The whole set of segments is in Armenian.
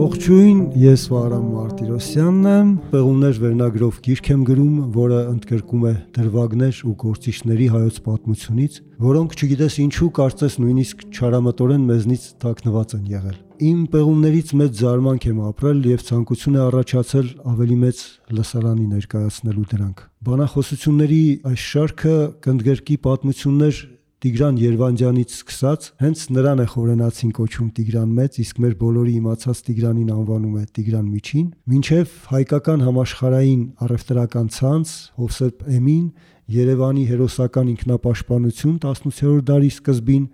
Ողջույն, ես Վահրամ Մարտիրոսյանն եմ, Պեղումներ վերնագրով գիրք եմ գրում, որը ընդգրկում է դրվագներ ու գործիչների հայոց պատմությունից, որոնք չգիտես ինչու կարծես նույնիսկ չարամտորեն մեզնից թաքնված են եղել։ Իմ պեղումներից մեծ զարմանք եմ ապրել եւ ցանկություն է առաջացել ավելի մեծ լսարանի ներկայացնելու դրանք։ Բանախոսությունների այս շարքը կընդգրկի պատմություններ Տիգրան Երվանդյանից սկսած, հենց նրան է խորենացին կոչում Տիգրան Մեծ, իսկ մեր բոլորի իմացած Տիգրանին անվանում է Տիգրան Միջին, մինչև հայկական համաշխարհային առևտրական ցանց, Հովսեփ Էմին, Երևանի հերոսական ինքնապաշտպանություն 18-րդ դարի սկզբին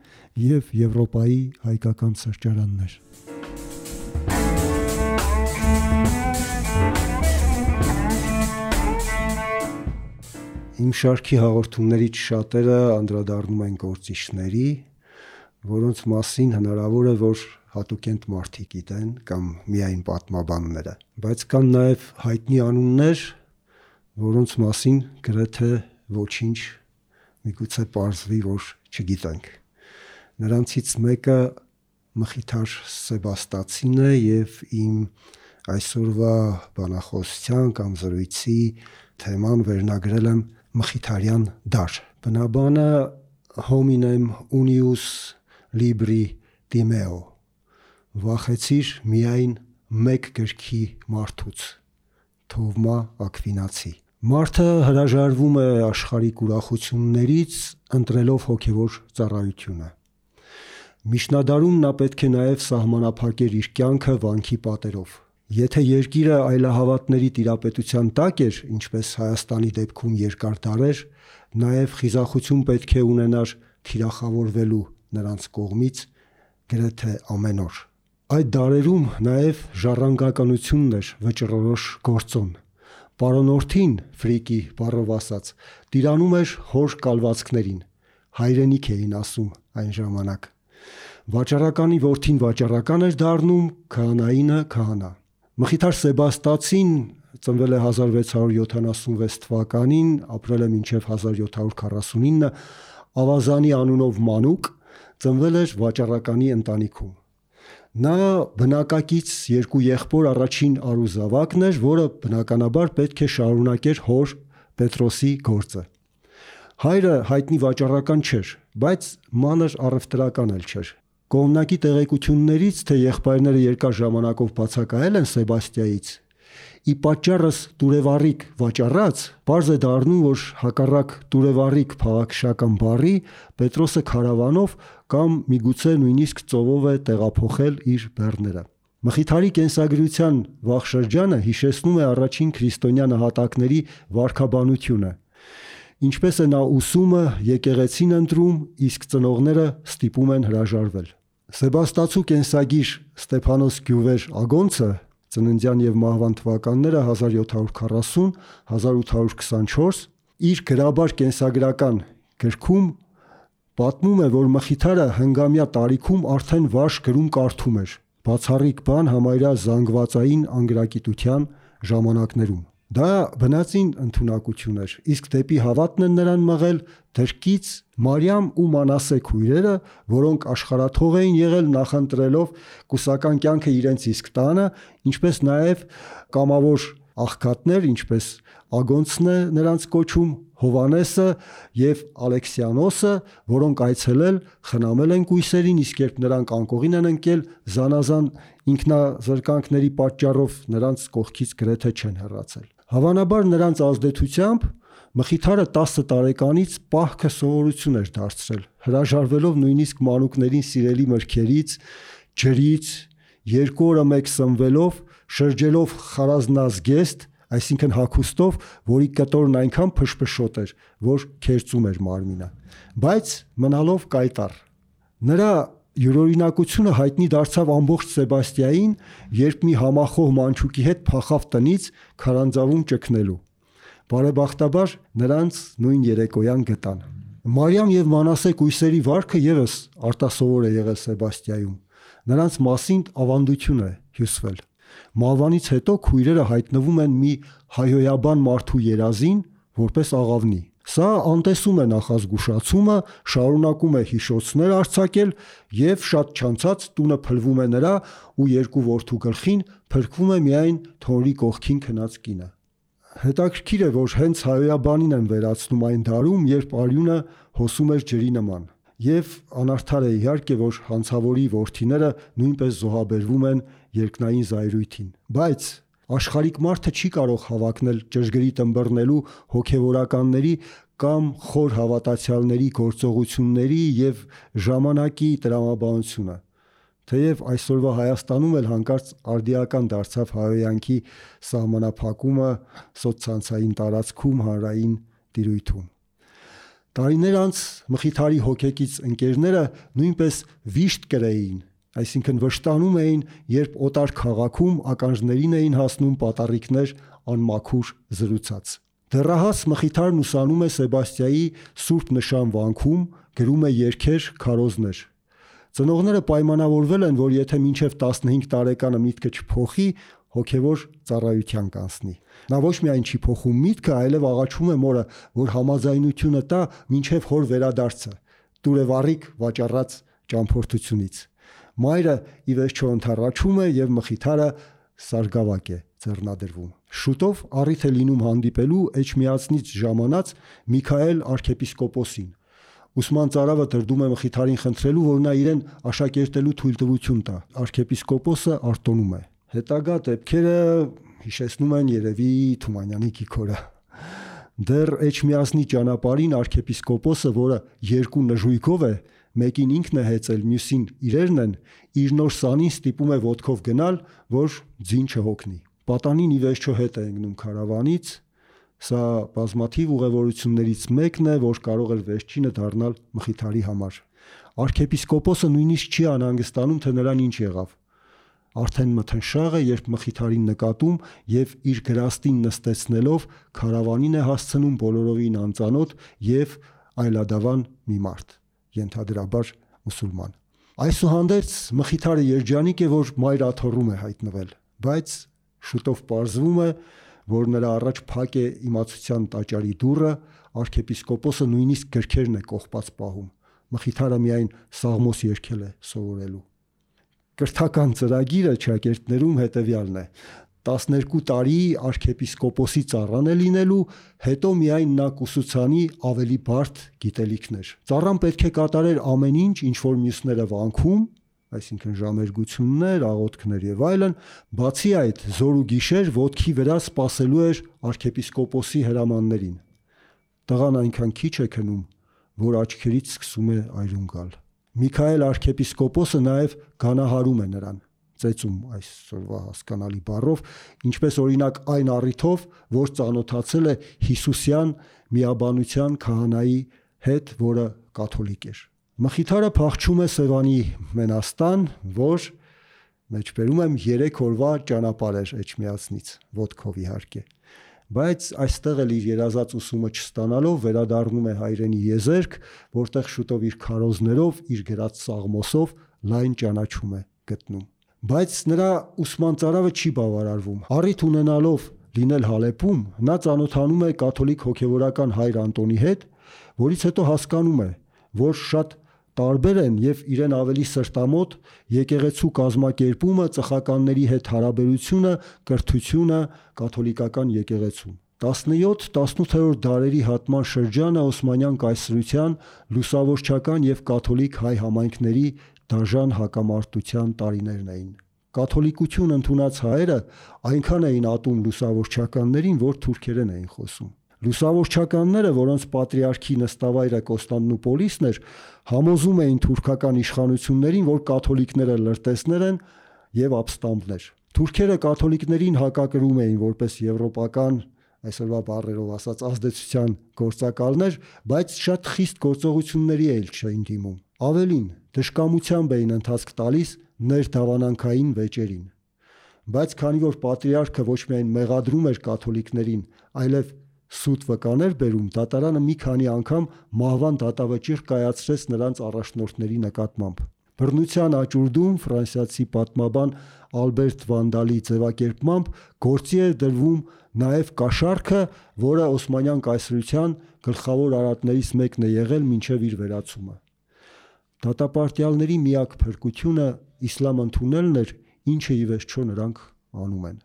եւ Եվրոպայի հայկական սրճարաններ։ Իմ շարքի հաղորդումներից շատերը անդրադառնում են գործիչների, որոնց մասին հնարավոր է, որ հատուկենտ մարդիկ գիտեն կամ միայն պատմաբանները, բայց կան նաև հայտնի անուններ, որոնց մասին գրեթե ոչինչ միգուցե պարզվի, որ չգիտենք։ Նրանցից մեկը Մխիթար Սեբաստացին է եւ իմ այսօրվա բանախոսության կամ զրույցի թեման վերնագրել եմ Մխիթարյան դար։ Բնաբանը hominem unius libri timeo, վախեցիր միայն մեկ գրքի մարդուց, Թովմա Ակվինացի։ Մարդը հրաժարվում է աշխարհիկ ուրախություններից, ընտրելով հոգևոր ծառայությունը։ Միջնադարում նա պետք է նաև սահմանափակեր իր կյանքը վանքի պատերով։ Եթե երկիրը այլահավատների տիրապետության տակ էր, ինչպես Հայաստանի դեպքում երկար դարեր, նաև խիզախություն պետք է ունենար թիրախավորվելու նրանց կողմից գրեթե ամեն օր։ Այդ դարերում նաև ժառանգականությունն էր վճռորոշ գործոն։ Պարոնորդին, ֆրիկի բառով ասած, տիրանում էր հոր կալվածքներին, հայրենիք էին ասում այն ժամանակ։ Վաճառականի որդին վաճառական էր դառնում, քահանայինը քահանա։ Մխիթար Սեբաստացին ծնվել է 1676 թվականին, ապրել է մինչև 1749, Ավազանի անունով մանուկ, ծնվել էր վաճառականի ընտանիքում։ Նա բնակակից երկու եղբոր առաջին արուզավակն էր, որը բնականաբար պետք է շարունակեր հոր Պետրոսի գործը։ Հայրը հայտնի վաճառական չէր, բայց մանր առևտրական էլ չէր։ Կողմնակի տեղեկություններից, թե եղբայրները երկար ժամանակով բացակայել են Սեբաստիայից, ի պատճառս տուրևառիկ վաճառած, պարզ է դառնում, որ հակառակ տուրևառիկ փաղաքշական բառի Պետրոսը քարավանով կամ միգուցե նույնիսկ ծովով է տեղափոխել իր բեռները։ Մխիթարի կենսագրության վաղ շրջանը հիշեցնում է առաջին քրիստոնյա նահատակների վարքաբանությունը, ինչպես է նա ուսումը եկեղեցին ընտրում, իսկ ծնողները ստիպում են հրաժարվել։ Սեբաստացու կենսագիր Ստեփանոս Գյուվեր Ագոնցը ծննդյան եւ մահվան թվականները 1740-1824 իր գրաբար կենսագրական գրքում պատմում է, որ Մխիթարը հնգամյա տարիքում արդեն վարժ գրում կարդում էր, բացառիկ բան համարյա զանգվածային անգրագիտության ժամանակներում։ Դա բնածին ընդունակություն էր, իսկ դեպի հավատն են նրան մղել դրկից Մարիամ ու Մանասե քույրերը, որոնք աշխարհաթող էին եղել նախընտրելով կուսական կյանքը իրենց իսկ տանը, ինչպես նաև կամավոր աղքատներ, ինչպես Ագոնցն է նրանց կոչում, Հովանեսը եւ Ալեքսիանոսը, որոնք այցելել, խնամել են կույսերին, իսկ երբ նրանք անկողին են ընկել, զանազան ինքնազրկանքների պատճառով նրանց կողքից գրեթե չեն հեռացել։ Հավանաբար նրանց ազդեցությամբ Մխիթարը 10 տարեկանից պահքը սովորություն էր դարձրել, հրաժարվելով նույնիսկ մանուկներին սիրելի մրգերից, ջրից, 2 օրը մեկ սնվելով, շրջելով խարազնազգեստ, այսինքն հագուստով, որի կտորն այնքան փշփշոտ էր, որ քերծում էր մարմինը, բայց մնալով կայտառ։ Նրա յուրօրինակությունը հայտնի դարձավ ամբողջ Սեբաստիային, երբ մի համախոհ մանչուկի հետ փախավ տնից քարանձավում ճգնելու։ Բարեբախտաբար նրանց նույն երեկոյան գտան։ Մարիամ եւ Մանասե կույսերի վարքը եւս արտասովոր է եղել Սեբաստիայում։ Նրանց մասին ավանդություն է հյուսվել։ Մահվանից հետո քույրերը հայտնվում են մի հայհոյաբան մարդու երազին, որպես աղավնի։ Սա անտեսում է նախազգուշացումը, շարունակում է հիշոցներ արձակել և շատ չանցած տունը փլվում է նրա ու երկու որդու գլխին փրկվում է միայն թոնրի կողքին քնած կինը։ Հետաքրքիր է, որ հենց հայոյաբանին են վերացնում այն դարում, երբ արյունը հոսում էր ջրի նման, և անարդար է իհարկե, որ հանցավորի որդիները նույնպես զոհաբերվում են երկնային զայրույթին, բայց աշխարհիկ մարդը չի կարող հավակնել ճշգրիտ ըմբռնելու հոգևորականների կամ խոր հավատացյալների գործողությունների և ժամանակի տրամաբանությունը, թեև այսօրվա Հայաստանում էլ հանկարծ արդիական դարձավ հայհոյանքի սահմանափակումը սոցցանցային տարածքում հանրային տիրույթում։ Տարիներ անց Մխիթարի հոգեկից ընկերները նույնպես վիշտ կրեին, այսինքն վշտանում էին, երբ օտար քաղաքում ականջներին էին հասնում պատառիկներ անմաքուր զրուցած։ Դեռահաս Մխիթարն ուսանում է Սեբաստիայի Սուրբ Նշան վանքում, գրում է երգեր, քարոզներ։ Ծնողները պայմանավորվել են, որ եթե մինչև 15 տարեկանը միտքը չփոխի, հոգևոր ծառայության կանցնի։ Նա ոչ միայն չի փոխում միտքը, այլև աղաչում է մորը, որ համաձայնությունը տա մինչև հոր վերադարձը, տուր է վառիկ վաճառած ճամփորդությունից։ Մայրը ի վերջո ընդառաջում է և Մխիթարը սարգավակ է ձեռնադրվում։ Շուտով առիթ է լինում հանդիպելու Էջմիածնից ժամանած Միքայել արքեպիսկոպոսին։ Ուսման ծարավը տրդում է Մխիթարին խնդրելու, որ նա իրեն աշակերտելու թույլտվություն տա։ Արքեպիսկոպոսը արտոնում է։ Հետագա դեպքերը հիշեցնում են երևի Թումանյանի Կիքորը։ Դեռ Էջմիածնի ճանապարհին արքեպիսկոպոսը, որը երկու նժույգով է, մեկին ինքն է հեծել, մյուսին իրերն են, իր նոր սանին ստիպում է ոտքով գնալ, որ ձին չհոգնի։ Պատանին ի վերջո հետ է ընկնում քարավանից։ Սա բազմաթիվ ուղևորություններից մեկն է, որ կարող էր վերջինը դառնալ Մխիթարի համար։ Արքեպիսկոպոսը նույնիսկ չի անհանգստանում, թե նրան ինչ եղավ։ Արդեն մթնշաղ է, երբ Մխիթարին նկատում և իր գրաստին նստեցնելով քարավանին է հասցնում բոլորովին անծանոթ և այլադավան մի մարդ, ենթադրաբար մուսուլման։ Այսուհանդերձ Մխիթարը երջանիկ է, որ մայր աթոռում է հայտնվել, բայց շուտով պարզվում է, որ նրա առաջ փակ է իմացության տաճարի դուռը, արքեպիսկոպոսը նույնիսկ գրքերն է կողպած պահում։ Մխիթարը միայն Սաղմոս երգել է սովորելու։ Կրթական ծրագիրը շակերտներում հետևյալն է. 12 տարի արքեպիսկոպոսի ծառան է լինելու, հետո միայն նա կուսուցանի ավելի բարդ գիտելիքներ։ Ծառան պետք է կատարեր ամեն ինչ, ինչ որ մյուսները վանքում, այսինքն ժամերգություններ, աղոթքներ եւ այլն, բացի այդ զոր ու գիշեր ոտքի վրա սպասելու էր արքեպիսկոպոսի հրամաններին։ Տղան այնքան քիչ է քնում, որ աչքերից սկսում է այրուն գալ։ Միքայել արքեպիսկոպոսը նաև գանահարում է նրան, ծեծում այսօրվա հասկանալի բառով, ինչպես օրինակ այն առիթով, որ ծանոթացել է Հիսուսյան միաբանության քահանայի հետ, որը կաթոլիկ էր։ Մխիթարը փախչում է Սևանի մենաստան, որ մեջբերում եմ 3 օրվա ճանապարհ էր Էջմիածնից, ոտքով իհարկե, բայց այստեղ էլ իր երազած ուսումը չստանալով վերադառնում է հայրենի եզերք, որտեղ շուտով իր քարոզներով, իր գրած Սաղմոսով լայն ճանաչում է գտնում։ Բայց նրա ուսման ծարավը չի բավարարվում։ Առիթ ունենալով լինել Հալեպում, նա ծանոթանում է կաթոլիկ հոգևորական հայր Անտոնի հետ, որից հետո հասկանում է, որ շատ տարբեր են եւ իրեն ավելի սրտամոտ եկեղեցու կազմակերպումը, ծխականների հետ հարաբերությունը, կրթությունը կաթոլիկական եկեղեցում։ 17-18-րդ դարերի հատման շրջանը Օսմանյան կայսրության լուսավորչական եւ կաթոլիկ հայ համայնքների դաժան հակամարտության տարիներն էին։ Կաթոլիկություն ընդունած հայերը այնքան էին ատում լուսավորչականներին, որ թուրքերեն էին խոսում։ Լուսավորչականները, որոնց պատրիարքի նստավայրը Կոստանդնուպոլիսն էր, համոզում էին թուրքական իշխանություններին, որ կաթոլիկները լրտեսներ են եւ ապստամբներ։ Թուրքերը կաթոլիկներին հակակրում էին որպես եվրոպական, այսօրվա բառերով ասած, ազդեցության գործակալներ, բայց շատ խիստ գործողությունների էլ չէին դիմում։ Ավելին, դժկամությամբ էին ընթացք տալիս ներդավանանքային վեճերին։ Բայց քանի որ պատրիարքը ոչ միայն մեղադրում էր կաթոլիկներին, այլև սուտ վկաներ բերում, դատարանը մի քանի անգամ մահվան դատավճիռ կայացրեց նրանց առաջնորդների նկատմամբ։ Բռնության աճուրդում ֆրանսիացի պատմաբան Ալբերտ Վանդալի ձևակերպմամբ գործի է դրվում նաև կաշառքը, որը Օսմանյան կայսրության գլխավոր արատներից մեկն է եղել մինչև իր վերացումը։ Դատապարտյալների միակ փրկությունը իսլամ ընդունելն էր, ինչը ի վերջո նրանք անում են։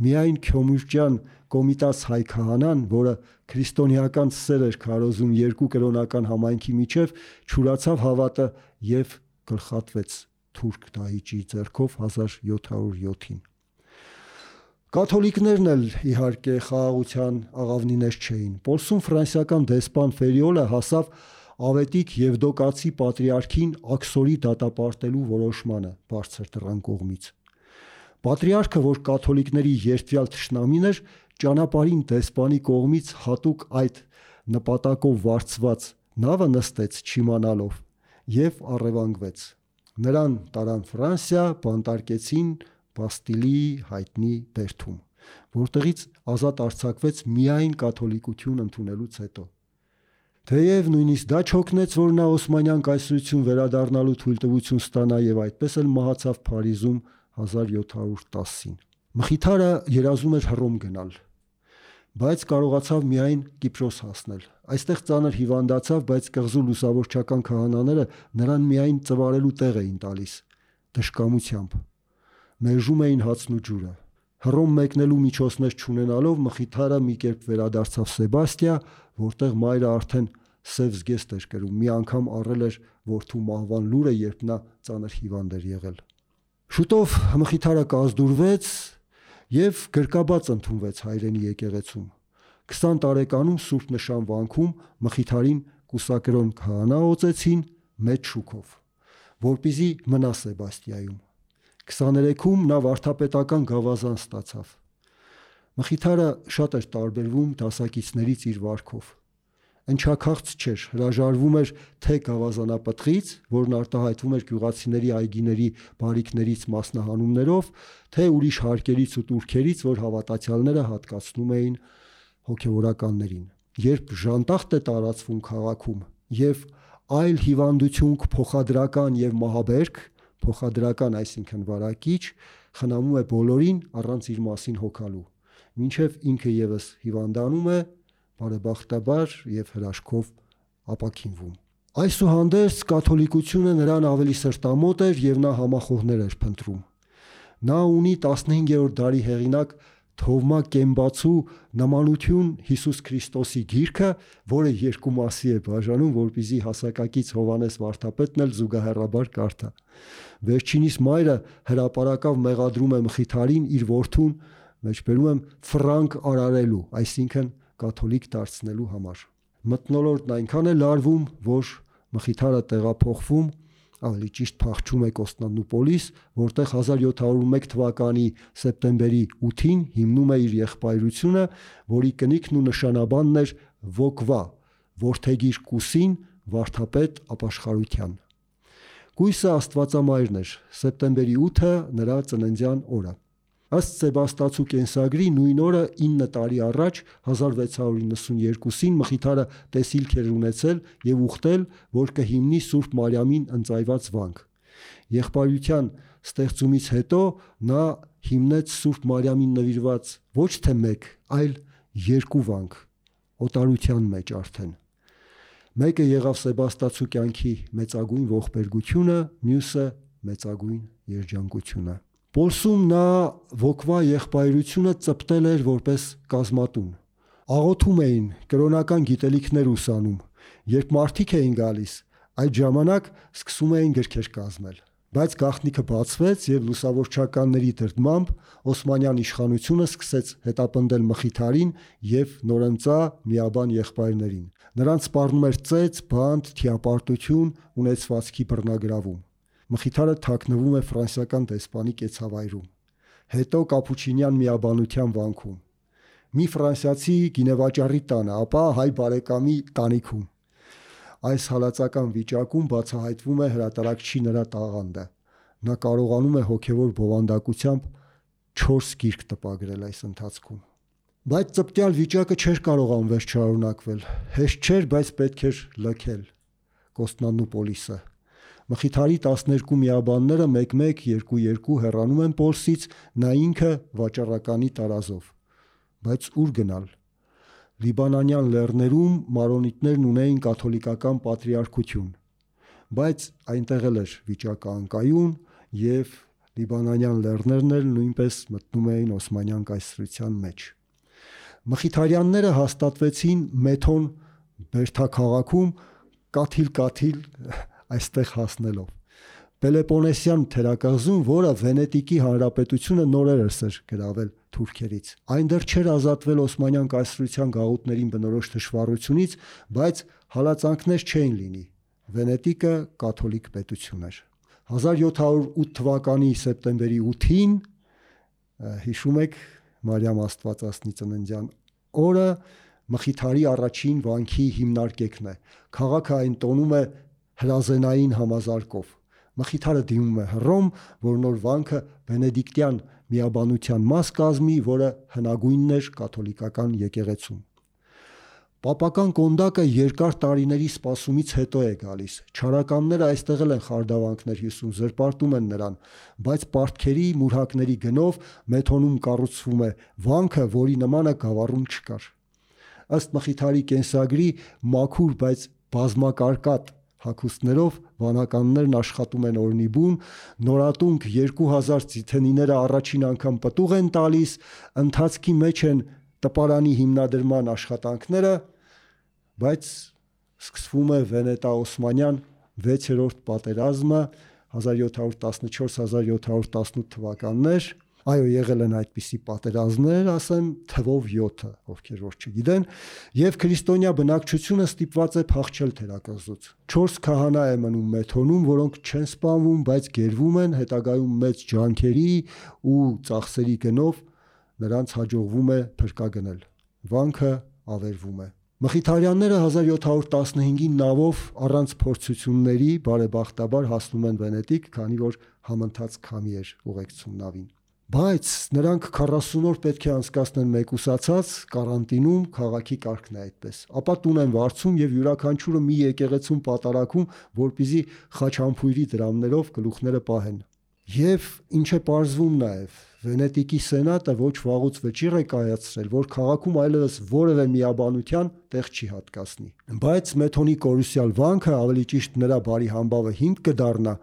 Միայն Քյոմուրջյան Կոմիտաս հայ քահանան, որը քրիստոնեական սեր էր քարոզում երկու կրոնական համայնքի միջև, չուրացավ հավատը եւ գլխատվեց թուրք դահիճի ձեռքով 1707-ին։ Կաթոլիկներն էլ իհարկե խաղաղության աղավնիներ չէին։ Պոլսում ֆրանսիական դեսպան Ֆերիոլը հասավ Ավետիք Եվդոկացի պատրիարքին աքսորի դատապարտելու որոշմանը բարձր դռան կողմից։ Պատրիարքը, որ կաթոլիկների երդվյալ թշնամին էր, ճանապարհին դեսպանի կողմից հատուկ այդ նպատակով վարձված նավը նստեց չիմանալով եւ առևանգվեց։ Նրան տարան Ֆրանսիա, բանտարկեցին Բաստիլի հայտնի բերդում, որտեղից ազատ արձակվեց միայն կաթոլիկություն ընդունելուց հետո։ Թեև նույնիսկ դա չօգնեց, որ նա Օսմանյան կայսրություն վերադառնալու թույլտվություն ստանա եւ այդպես էլ մահացավ Փարիզում 1710-ին։ Մխիթարը երազում էր Հռոմ գնալ, բայց կարողացավ միայն Կիպրոս հասնել։ Այստեղ ծանր հիվանդացավ, բայց կղզու լուսավորչական քահանաները նրան միայն ծվարելու տեղ էին տալիս, դժկամությամբ։ Մերժում էին հացն ու ջուրը։ Հռոմ մեկնելու միջոցներ չունենալով Մխիթարը մի կերպ վերադարձավ Սեբաստիա, որտեղ մայրը արդեն սև զգեստ էր կրում։ Մի անգամ առել էր որդու մահվան լուրը, երբ նա ծանր հիվանդ էր եղել։ Շուտով Մխիթարը կազդուրվեց եւ գրկաբաց ընդունվեց հայրենի եկեղեցում։ 20 տարեկանում Սուրբ Նշան վանքում Մխիթարին կուսակրոն քահանա օծեցին մեծ շուքով, որպեսզի մնա Սեբաստիայում։ 23-ում նա վարդապետական գավազան ստացավ։ Մխիթարը շատ էր տարբերվում դասակիցներից իր վարքով։ Ընչաքաղց չէր, հրաժարվում էր թե գավազանապտղից, որն արտահայտվում էր գյուղացիների այգիների բարիքներից մասնահանումներով, թե ուրիշ հարկերից ու տուրքերից, որ հավատացյալները հատկացնում էին հոգևորականներին։ Երբ ժանտախտ է տարածվում քաղաքում եւ այլ հիվանդություն փոխադրական եւ մահաբերք, փոխադրական այսինքն վարակիչ, խնամում է բոլորին առանց իր մասին հոգալու, մինչև ինքը եւս հիվանդանում է, բարեբախտաբար եւ հրաշքով ապաքինվում։ Այսուհանդերձ կաթոլիկությունը նրան ավելի սրտամոտ էր եւ նա համախոհներ էր փնտրում։ Նա ունի 15-րդ դարի հեղինակ Թովմա Կեմբացու նմանություն Հիսուս Քրիստոսի գիրքը, որը երկու մասի է բաժանում, որպեսզի հասակակից Հովանես վարդապետն էլ զուգահեռաբար կարդա։ Վերջինիս մայրը հրապարակավ մեղադրում է Մխիթարին իր որդուն, մեջբերում եմ, ֆրանկ արարելու, այսինքն կաթոլիկ դարձնելու համար։ Մթնոլորտն այնքան է լարվում, որ Մխիթարը տեղափոխվում, ավելի ճիշտ փախչում է Կոստանդնուպոլիս, որտեղ 1701 թվականի սեպտեմբերի 8-ին հիմնում է իր եղբայրությունը, որի կնիքն ու նշանաբանն էր Վոկվա, որդեգիր Կուսին, վարդապետ ապաշխարության։ Կույսը Աստվածամայրն էր, սեպտեմբերի 8-ը նրա ծննդյան օրը։ Ըստ Սեբաստացու կենսագրի նույն օրը 9 տարի առաջ 1692-ին Մխիթարը տեսիլք էր ունեցել եւ ուխտել, որ կհիմնի Սուրբ Մարիամին ընծայված վանք։ Եղբայրության ստեղծումից հետո նա հիմնեց Սուրբ Մարիամին նվիրված ոչ թե մեկ, այլ երկու վանք, օտարության մեջ արդեն։ Մեկը եղավ Սեբաստացու կյանքի մեծագույն ողբերգությունը, մյուսը մեծագույն երջանկությունը։ Պոլսում նա Վոկվա եղբայրությունը ծպտել էր որպես կազմատուն։ Աղոթում էին, կրոնական գիտելիքներ ուսանում։ Երբ մարդիկ էին գալիս, այդ ժամանակ սկսում էին գրքեր կազմել։ Բայց գաղտնիքը բացվեց եւ լուսավորչականների դրդմամբ Օսմանյան իշխանությունը սկսեց հետապնդել Մխիթարին եւ նորընծա միաբան եղբայրներին։ Նրանց սպառնում էր ծեծ, բանտ, թիապարտություն, ունեցվածքի բռնագրավում։ Մխիթարը թաքնվում է ֆրանսիական դեսպանի կեցավայրում, հետո կապուչինյան միաբանության վանքում, մի ֆրանսիացի գինեվաճառի տանը, ապա հայ բարեկամի տանիքում։ Այս հալածական վիճակում բացահայտվում է հրատարակչի նրա տաղանդը։ Նա կարողանում է հոգևոր բովանդակությամբ 4 գիրք տպագրել այս ընթացքում։ Բայց ծպտյալ վիճակը չէր կարող անվերջ շարունակվել։ Հեշտ չէր, բայց պետք էր լքել Կոստանդնուպոլիսը։ Մխիթարի 12 միաբանները 1-1, 2-2 հեռանում են Պոլսից, նա ինքը վաճառականի տարազով։ Բայց ուր գնալ։ Լիբանանյան լեռներում մարոնիտներն ունեին կաթոլիկական պատրիարքություն, բայց այնտեղ էլ էր վիճակը անկայուն եւ լիբանանյան լեռներն էլ նույնպես մտնում էին Օսմանյան կայսրության մեջ։ Մխիթարյանները հաստատվեցին Մեթոն Բերթաքաղաքում կաթիլ այստեղ հասնելով։ Պելեպոնեսյան թերակղզում, որը Վենետիկի հանրապետությունը նորերս էր գրավել թուրքերից։ Այն դեռ չէր ազատվել Օսմանյան կայսրության գաղութներին բնորոշ թշվառությունից, բայց հալածանքներ չէին լինի։ Վենետիկը կաթոլիկ պետություն էր։ 1708 թվականի սեպտեմբերի 8-ին, հիշում եք Մարիամ Աստվածածնի ծննդյան օրը, Մխիթարի առաջին վանքի հիմնարկեկն է։ Քաղաքը այն տոնում է հրազենային համազարկով։ Մխիթարը դիմում է Հռոմ, որ նոր վանքը բենեդիկտյան միաբանության մաս կազմի, որը հնագույնն էր կաթոլիկական եկեղեցում։ Պապական կոնդակը երկար տարիների սպասումից հետո է գալիս։ Չարականները այստեղ էլ են խարդավանքներ հյուսում, զրպարտում են նրան, բայց պարտքերի, մուրհակների գնով Մեթոնում կառուցվում է վանքը, որի նմանը Գավառում չկար։ Ըստ Մխիթարի կենսագրի մաքուր, բայց բազմակարկատ հագուստներով վանականներն աշխատում են օրնիբուն, նորատունկ 2000 ձիթենիները առաջին անգամ պտուղ են տալիս, ընթացքի մեջ են տպարանի հիմնադրման աշխատանքները, բայց սկսվում է Վենետա-Օսմանյան 6-րդ պատերազմը 1714-1718 թվականներ։ Այո, եղել են այդպիսի պատերազմներ, ասեմ թվով 7, ովքեր որ չգիտեն, եւ քրիստոնյա բնակչությունը ստիպված է փախչել թերակղզուց։ 4 քահանա է մնում Մեթոնում, որոնք չեն սպանվում, բայց գերվում են, հետագայում մեծ ջանքերի ու ծախսերի գնով նրանց հաջողվում է փրկագնել։ Վանքը ավերվում է։ Մխիթարյանները 1715-ին նավով առանց փորձությունների բարեբախտաբար հասնում են Վենետիկ, քանի որ համընթաց քամի էր ուղեկցում նավին։ Բայց նրանք 40 օր պետք է անցկացնեն մեկուսացած կարանտինում, քաղաքի կարգն է այդպես։ Ապա տուն են վարձում եւ յուրաքանչյուրը մի եկեղեցում պատարակում, որպեսզի խաչամփույրի դրամներով գլուխները պահեն։ Եվ ինչ է պարզվում նաեւ, Վենետիկի սենատը ոչ վաղուց վճիռ է կայացրել, որ քաղաքում այլևս որևէ միաբանության տեղ չի հատկացնի։ Բայց Մեթոնի կորուսյալ վանքը, ավելի ճիշտ նրա բարի համբավը հիմք կդառնա,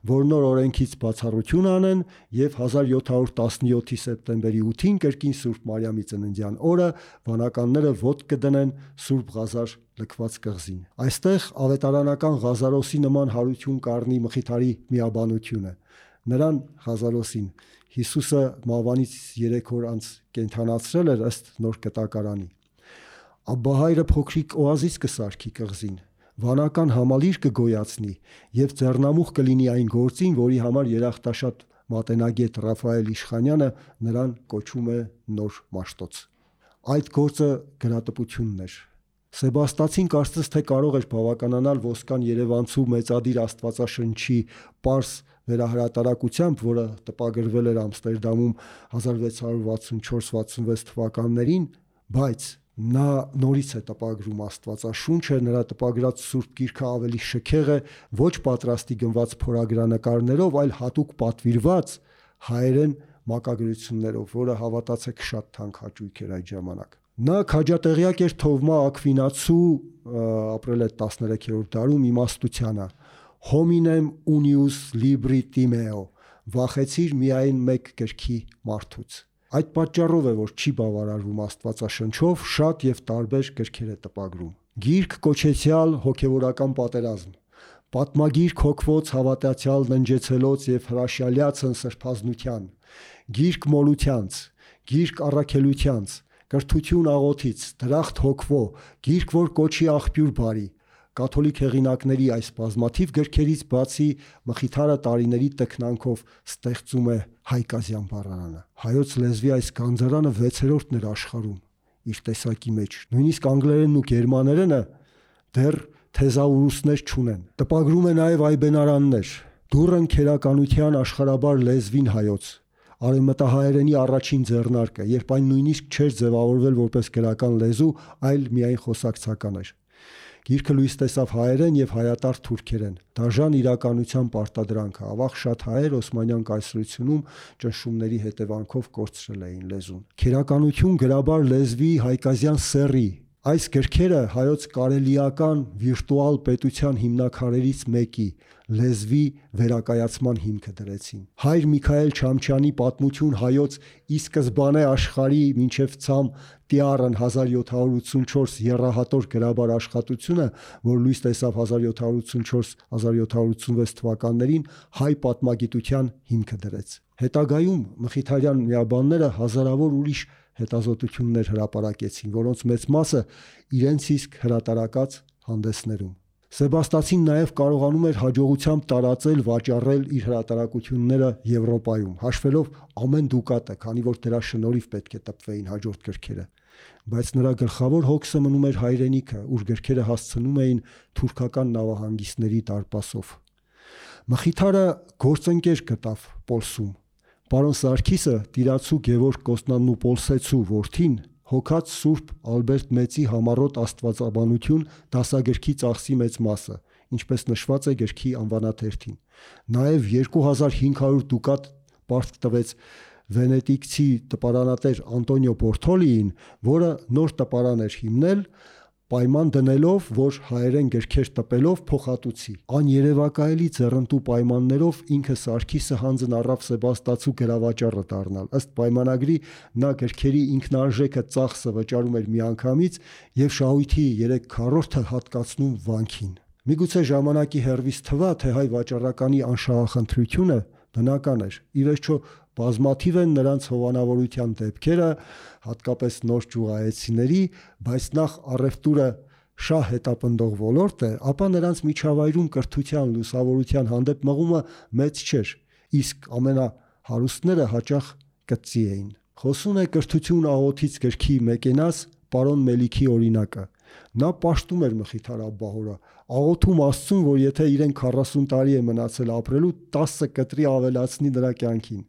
որ նոր օրենքից բացառություն անեն եւ 1717-ի սեպտեմբերի 8-ին կրկին Սուրբ Մարիամի ծննդյան օրը վանականները ոտք կդնեն Սուրբ Ղազար լքված կղզին։ Այստեղ ավետարանական Ղազարոսի նման հարություն կառնի Մխիթարի միաբանությունը։ Նրան Ղազարոսին Հիսուսը մահվանից 3 օր անց կենդանացրել էր ըստ նոր կտակարանի։ Աբբահայրը փոքրիկ օազիս կսարքի կղզին, վանական համալիր կգոյացնի եւ ձեռնամուխ կլինի այն գործին, որի համար երախտաշատ մատենագետ Ռաֆայել Իշխանյանը նրան կոչում է նոր Մաշտոց։ Այդ գործը գրատպությունն էր։ Սեբաստացին կարծես թե կարող էր բավականանալ ոսկան Երևանցու մեծադիր Աստվածաշնչի պարզ վերահրատարակությամբ, որը տպագրվել էր Ամստերդամում 1664-66 թվականներին, բայց նա նորից է տպագրում Աստվածաշունչը, նրա տպագրած Սուրբ Գիրքը ավելի շքեղ է, ոչ պատրաստի գնված փորագրանկարներով, այլ հատուկ պատվիրված հայերեն մակագրություններով, որը հավատացեք շատ թանկ հաճույք էր այդ ժամանակ։ Նա քաջատեղյակ էր Թովմա Ակվինացու ապրել է 13-րդ դարում իմաստությանը։ Hominem unius libri timeo, վախեցիր միայն մեկ գրքի մարդուց։ Այդ պատճառով է, որ չի բավարարվում Աստվածաշնչով, շատ եւ տարբեր գրքեր է տպագրում։ Գիրք կոչեցյալ հոգեվորական պատերազմ, պատմագիրք հոգվոց հավատացյալ ննջեցելոց եւ հրաշալյացն սրբազնության, գիրք մոլությանց, գիրք առաքելությանց, կրթություն աղոթից, դրախտ հոգվո, գիրք որ կոչի աղբյուր բարի։ Կաթոլիկ հեղինակների այս բազմաթիվ գրքերից բացի Մխիթարը տարիների տքնանքով ստեղծում է հայկազյան բառարանը։ Հայոց լեզվի այս գանձարանը 6-րդն էր աշխարհում իր տեսակի մեջ։ Նույնիսկ անգլերենն ու գերմաներենը դեռ թեզաուրուսներ չունեն։ Տպագրում է նաև այբենարաններ։ Դուրն քերականության աշխարհաբար լեզվին հայոց։ Արևմտահայերենի առաջին ձեռնարկը, երբ այն նույնիսկ չէր ձևավորվել որպես գրական լեզու, այլ միայն խոսակցական էր։ Գիրքը լույս տեսավ հայերեն եւ հայատար թուրքերեն։ Դաժան իրականության պարտադրանքը, ավաղ շատ հայեր Օսմանյան կայսրությունում ճնշումների հետևանքով կորցրել էին լեզուն։ Քերականություն գրաբար լեզվի հայկազյան սեռի։ Այս գրքերը հայոց կարելիական վիրտուալ պետության հիմնաքարերից մեկի լեզվի վերակայացման հիմքը դրեցին։ Հայր Միքայել Չամչյանի պատմություն հայոց ի սկզբանե աշխարհի մինչև ցամ Տիառն 1784 եռահատոր գրաբար աշխատությունը, որ լույս տեսավ 1784-1786 թվականներին, հայ պատմագիտության հիմքը դրեց։ Հետագայում մխիթարյան միաբանները հազարավոր ուրիշ հետազոտություններ հրապարակեցին, որոնց մեծ մասը իրենց իսկ հրատարակած հանդեսներում։ Սեբաստացին նաև կարողանում էր հաջողությամբ տարածել, վաճառել իր հրատարակությունները Եվրոպայում, հաշվելով ամեն դուկատը, քանի որ դրա շնորհիվ պետք է տպվեին հաջորդ գրքերը։ Բայց նրա գլխավոր հոգսը մնում էր հայրենիքը, ուր գրքերը հասցնում էին թուրքական նավահանգիստների դարպասով։ Մխիթարը գործընկեր գտավ Պոլսում։ Պարոն Սարգիսը տիրացու Գևորգ Կոստանդնուպոլսեցու որդին հոգած Սուրբ Ալբերտ Մեծի համառոտ աստվածաբանություն դասագրքի ծախսի մեծ մասը, ինչպես նշված է գրքի անվանաթերթին։ Նաև 2500 դուկատ պարտք տվեց վենետիկցի տպարանատեր Անտոնիո Բորթոլիին, որը նոր տպարան էր հիմնել, պայման դնելով, որ հայերեն գրքեր տպելով փոխհատուցի։ Աներևակայելի ձեռնտու պայմաններով ինքը Սարգիսը հանձն առավ Սեբաստացու գրավաճառը դառնալ։ Ըստ պայմանագրի նա գրքերի ինքնարժեքը ծախսը վճարում էր միանգամից եւ շահույթի 3/4-ը հատկացնում վանքին։ Միգուցե ժամանակի հերվից թվա, թե հայ վաճառականի անշահախնդրությունը բնական էր։ Ի վերջո բազմաթիվ են նրանց հովանավորության դեպքերը, հատկապես նոր ճյուղայեցիների, բայց նախ առևտուրը շահ հետապնդող ոլորտ է, ապա նրանց միջավայրում կրթության, լուսավորության հանդեպ մղումը մեծ չէր, իսկ ամենահարուստները հաճախ կծի էին։ Խոսուն է կրթություն աղոթից գրքի մեկենաս պարոն Մելիքի օրինակը։ Նա պաշտում էր Մխիթար Աբբահորը, աղոթում Աստծուն, որ եթե իրեն 40 տարի է մնացել ապրելու, 10 կտրի ավելացնի նրա կյանքին։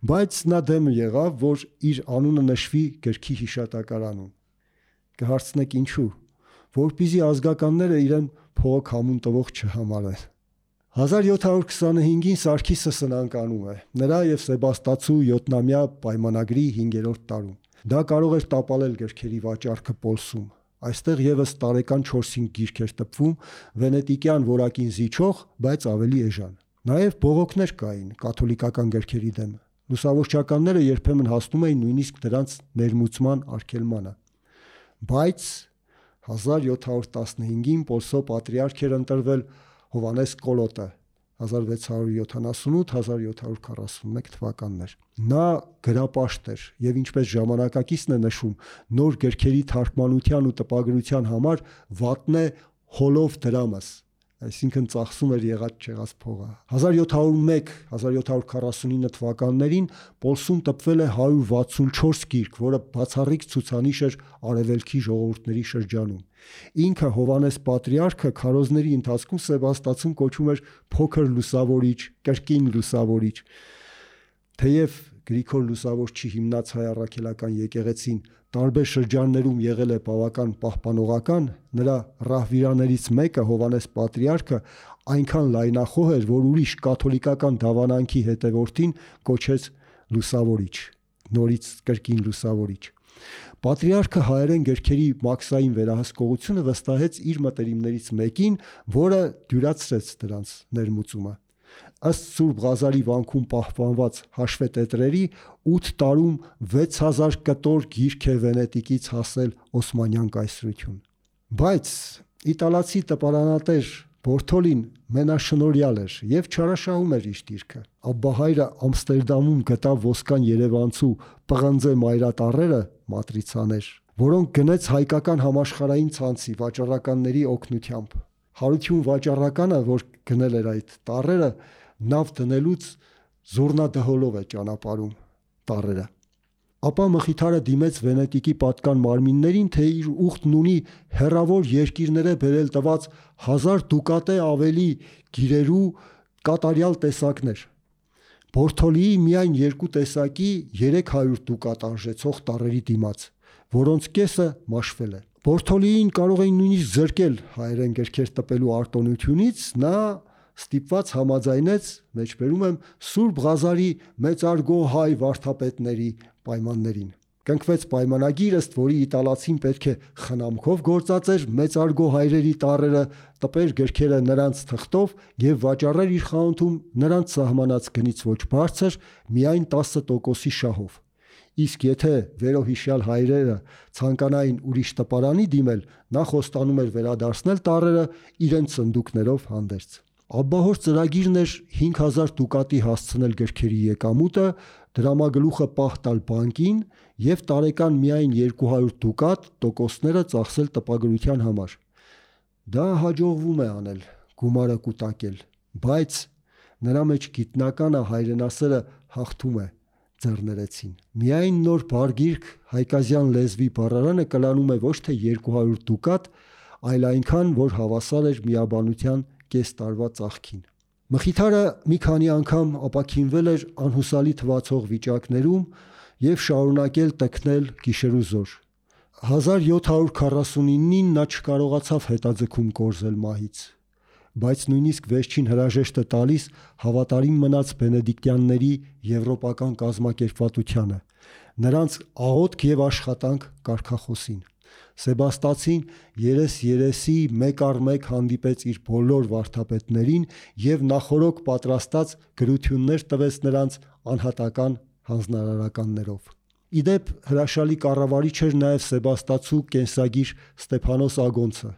Բայց նա դեմ եղավ, որ իր անունը նշվի գրքի հիշատակարանում։ Կհարցնեք ինչու, որպեսզի ազգականները իրեն փողոք համուն տվող չհամարեն։ 1725-ին Սարգիսը սնանկանում է, նրա եւ Սեբաստացու 7-ամյա պայմանագրի 5-րդ տարում։ Դա կարող էր տապալել գրքերի վաճառքը Պոլսում։ Այստեղ եւս տարեկան 4-5 գիրք էր տպվում, վենետիկյան որակին զիջող, բայց ավելի էժան։ Նաև բողոքներ կային կաթոլիկական գրքերի դեմ։ Լուսավորչականները երբեմն հասնում էին նույնիսկ դրանց ներմուծման արգելմանը։ Բայց 1715-ին Պոլսո պատրիարք էր ընտրվել Հովանես Կոլոտը 1678-1741 թվականներ։ Նա գրապաշտ էր եւ ինչպես ժամանակակիցն է նշում, նոր գրքերի թարգմանության ու տպագրության համար վատնե հոլով դրամս, այսինքն ծախսում էր եղած չեղած փողը։ 1701-1749 թվականներին Պոլսում տպվել է 164 գիրք, որը բացառիկ ցուցանիշ էր արևելքի ժողովուրդների շրջանում։ Ինքը Հովանես պատրիարքը քարոզների ընթացքում Սեբաստացում կոչում էր փոքր լուսավորիչ, կրկին լուսավորիչ։ Թեև Գրիգոր Լուսավորչի հիմնած հայ առաքելական եկեղեցին տարբեր շրջաններում եղել է բավական պահպանողական, նրա ռահվիրաներից մեկը Հովանես պատրիարքը այնքան լայնախոհ էր, որ ուրիշ կաթոլիկական դավանանքի հետևորդին կոչեց լուսավորիչ, նորից կրկին լուսավորիչ։ Պատրիարքը հայերեն գրքերի մաքսային վերահսկողությունը վստահեց իր մտերիմներից մեկին, որը դյուրացրեց դրանց ներմուծումը։ Ըստ Սուրբ Ղազարի վանքում պահպանված հաշվետետրերի 8 տարում 6000 կտոր գիրք է Վենետիկից հասել Օսմանյան կայսրություն։ Բայց իտալացի տպարանատեր Բորթոլին մենաշնորհյալ էր եւ չարաշահում էր իր դիրքը։ Աբբահայրը Ամստերդամում գտավ ոսկան երևանցու պղնձե մայրատառերը մատրիցաներ, որոնք գնեց հայկական համաշխարհային ցանցի վաճառականների օգնությամբ։ Հարություն վաճառականը, որ գնել էր այդ տառերը, նավ դնելուց զուռնադհոլով է ճանապարհում տառերը։ Ապա Մխիթարը դիմեց Վենետիկի պատկան մարմիններին, թե իր ուխտն ունի հեռավոր երկիրները բերել տված 1000 դուկատե ավելի գիրերու կատարյալ տեսակներ։ Բորթոլիի միայն 2 տեսակի 300 դուկատ արժեցող տառերի դիմաց, որոնց կեսը մաշվել է։ Բորթոլիին կարող էին նույնիսկ զրկել հայերեն գրքեր տպելու արտոնությունից, նա ստիպված համաձայնեց, մեջբերում եմ, Սուրբ Ղազարի մեծարգո հայ վարդապետների պայմաններին։ Կնքվեց պայմանագիր, ըստ որի իտալացին պետք է խնամքով գործածեր մեծարգո հայրերի տառերը, տպեր գրքերը նրանց թղթով եւ վաճառեր իր խանութում նրանց սահմանած գնից ոչ բարձր, միայն 10% շահով։ Իսկ եթե վերոհիշյալ հայրերը ցանկանային ուրիշ տպարանի դիմել, նա խոստանում էր վերադարձնել տառերը իրենց սնդուկներով հանդերձ։ Աբբահոր ծրագիրն էր 5000 դուկատի հասցնել գրքերի եկամուտը, դրամագլուխը պահ տալ բանկին եւ տարեկան միայն 200 դուկատ տոկոսները ծախսել տպագրության համար։ Դա հաջողվում է անել, գումարը կուտակել, բայց նրա մեջ գիտնականը հայրենասերը հաղթում է, ձեռներեցին։ Միայն նոր բարգիրք հայկազյան լեզվի բառարանը կլանում է ոչ թե 200 դուկատ, այլ այնքան, որ հավասար էր միաբանության կես տարվա ծախքին։ Մխիթարը մի քանի անգամ ապաքինվել էր անհուսալի թվացող վիճակներում եւ շարունակել տքնել գիշերուզոր։ 1749-ին նա չկարողացավ հետաձգում կորզել մահից, բայց նույնիսկ վերջին հրաժեշտը տալիս հավատարիմ մնաց բենեդիկտյանների եվրոպական կազմակերպվածությանը, նրանց աղոթք եւ աշխատանք կարգախոսին։ Սեբաստացին երես-երեսի մեկ առ մեկ հանդիպեց իր բոլոր վարդապետներին եւ նախորոք պատրաստած գրություններ տվեց նրանց անհատական հանձնարարականներով։ Իդեպ հրաշալի կառավարիչ էր նաեւ Սեբաստացու կենսագիր Ստեփանոս Ագոնցը,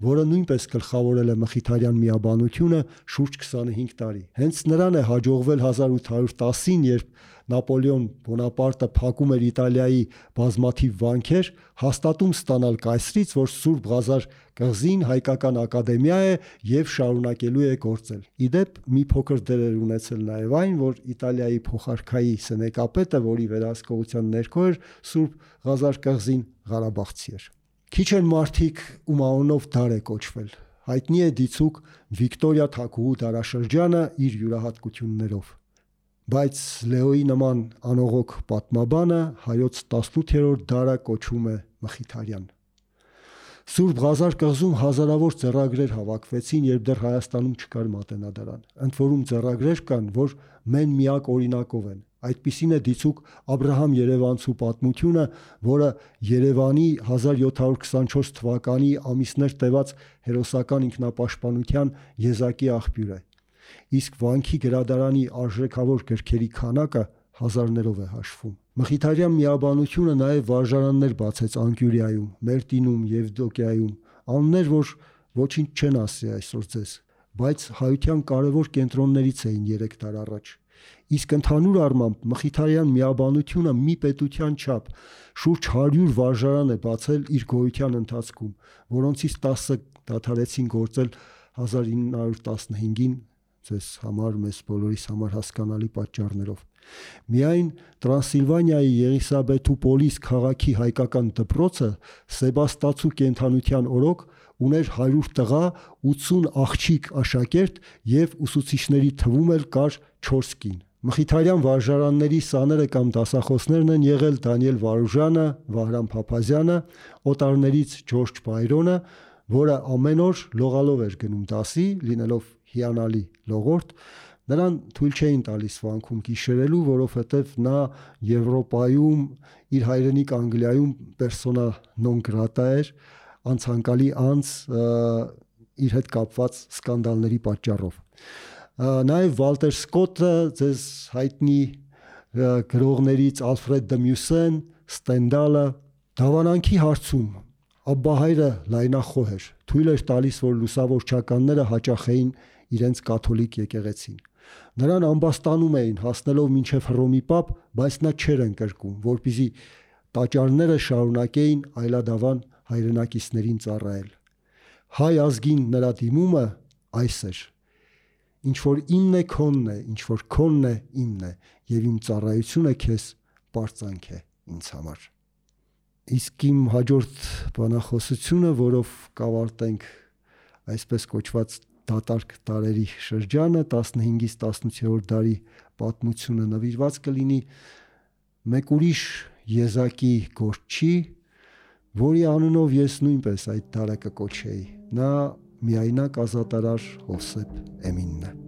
որը նույնպես գլխավորել է մխիթարյան միաբանությունը շուրջ 25 տարի։ Հենց նրան է հաջողվել 1810-ին, երբ Նապոլեոն Բոնապարտը փակում էր Իտալիայի բազմաթիվ վանքեր, հաստատում ստանալ կայսրից, որ Սուրբ Ղազար կղզին հայկական ակադեմիա է եւ շարունակելու է գործել։ Իդեպ մի փոքր դեր էր ունեցել նաեւ այն, որ Իտալիայի փոխարքայի սենեկապետը, որի վերահսկողության ներքո էր Սուրբ Ղազար կղզին, Ղարաբաղցի էր։ Քիչ են մարդիկ, ում անունով դար է կոչվել։ Հայտնի է դիցուք Վիկտորիա Թագուհու դարաշրջանը իր յուրահատկություններով։ Բայց Լեոյի նման անողոք պատմաբանը հայոց 18-րդ դարը կոչում է Մխիթարյան։ Սուրբ Ղազար կղզում հազարավոր ձեռագրեր հավաքվեցին, երբ դեռ Հայաստանում չկար մատենադարան։ Ընդ որում ձեռագրեր կան, որ մեն միակ օրինակով են։ Այդպիսին է դիցուք Աբրահամ Երևանցու պատմությունը, որը Երևանի 1724 թվականի ամիսներ տևած հերոսական ինքնապաշտպանության եզակի աղբյուր է։ Իսկ վանքի գրադարանի արժեքավոր գրքերի քանակը հազարներով է հաշվում։ Մխիթարյան միաբանությունը նաև վարժարաններ բացեց Անկյուրիայում, Մերտինում, Եվդոկիայում, անուններ, որ ոչինչ չեն ասի այսօր ձեզ, բայց հայության կարևոր կենտրոններից էին 3 դար առաջ։ Իսկ ընդհանուր առմամբ Մխիթարյան միաբանությունը մի պետության չափ շուրջ 100 վարժարան է բացել իր գոյության ընթացքում, որոնցից 10-ը դադարեցին գործել 1915-ին, ձեզ համար, մեզ բոլորիս համար հասկանալի պատճառներով։ Միայն Տրանսիլվանիայի Եղիսաբեթուպոլիս քաղաքի հայկական դպրոցը Սեբաստացու կենդանության օրոք ուներ 100 տղա, 80 աղջիկ աշակերտ եւ ուսուցիչների թվում էլ կար 4 կին։ Մխիթարյան վարժարանների սաները կամ դասախոսներն են եղել Դանիել Վարուժանը, Վահրամ Փափազյանը, օտարներից Ջորջ Բայրոնը, որը ամեն օր լողալով էր գնում դասի, լինելով հիանալի լողորդ, նրան թույլ չէին տալիս վանքում գիշերելու, որովհետև նա Եվրոպայում, իր հայրենիք Անգլիայում persona non grata էր, անցանկալի անձ իր հետ կապված սկանդալների պատճառով։ Նաև Վալտեր Սկոտը, ձեզ հայտնի գրողներից Ալֆրեդ դը Մյուսեն, Ստենդալը, դավանանքի հարցում Աբբահայրը լայնախոհ էր, թույլ էր տալիս, որ լուսավորչականները հաճախեին իրենց կաթոլիկ եկեղեցին։ Նրան ամբաստանում էին, հասնելով մինչև Հռոմի պապ, բայց նա չէր ընկրկում, որպեսզի տաճարները շարունակեին այլադավան հայրենակիցներին ծառայել։ Հայ ազգին նրա դիմումը այս էր. ինչ որ իմն է քոնն է, ինչ որ քոնն է իմն է, եւ իմ ծառայությունը քեզ պարծանք է ինձ համար։ Իսկ իմ հաջորդ բանախոսությունը, որով կավարտենք այսպես կոչված դատարկ տարերի շրջանը, 15-ից 18-րդ դարի պատմությունը, նվիրված կլինի մեկ ուրիշ եզակի գործչի, որի անունով ես նույնպես այդ դարը կկոչեի։ Նա միայնակ ազատարար Հովսեփ Էմինն է։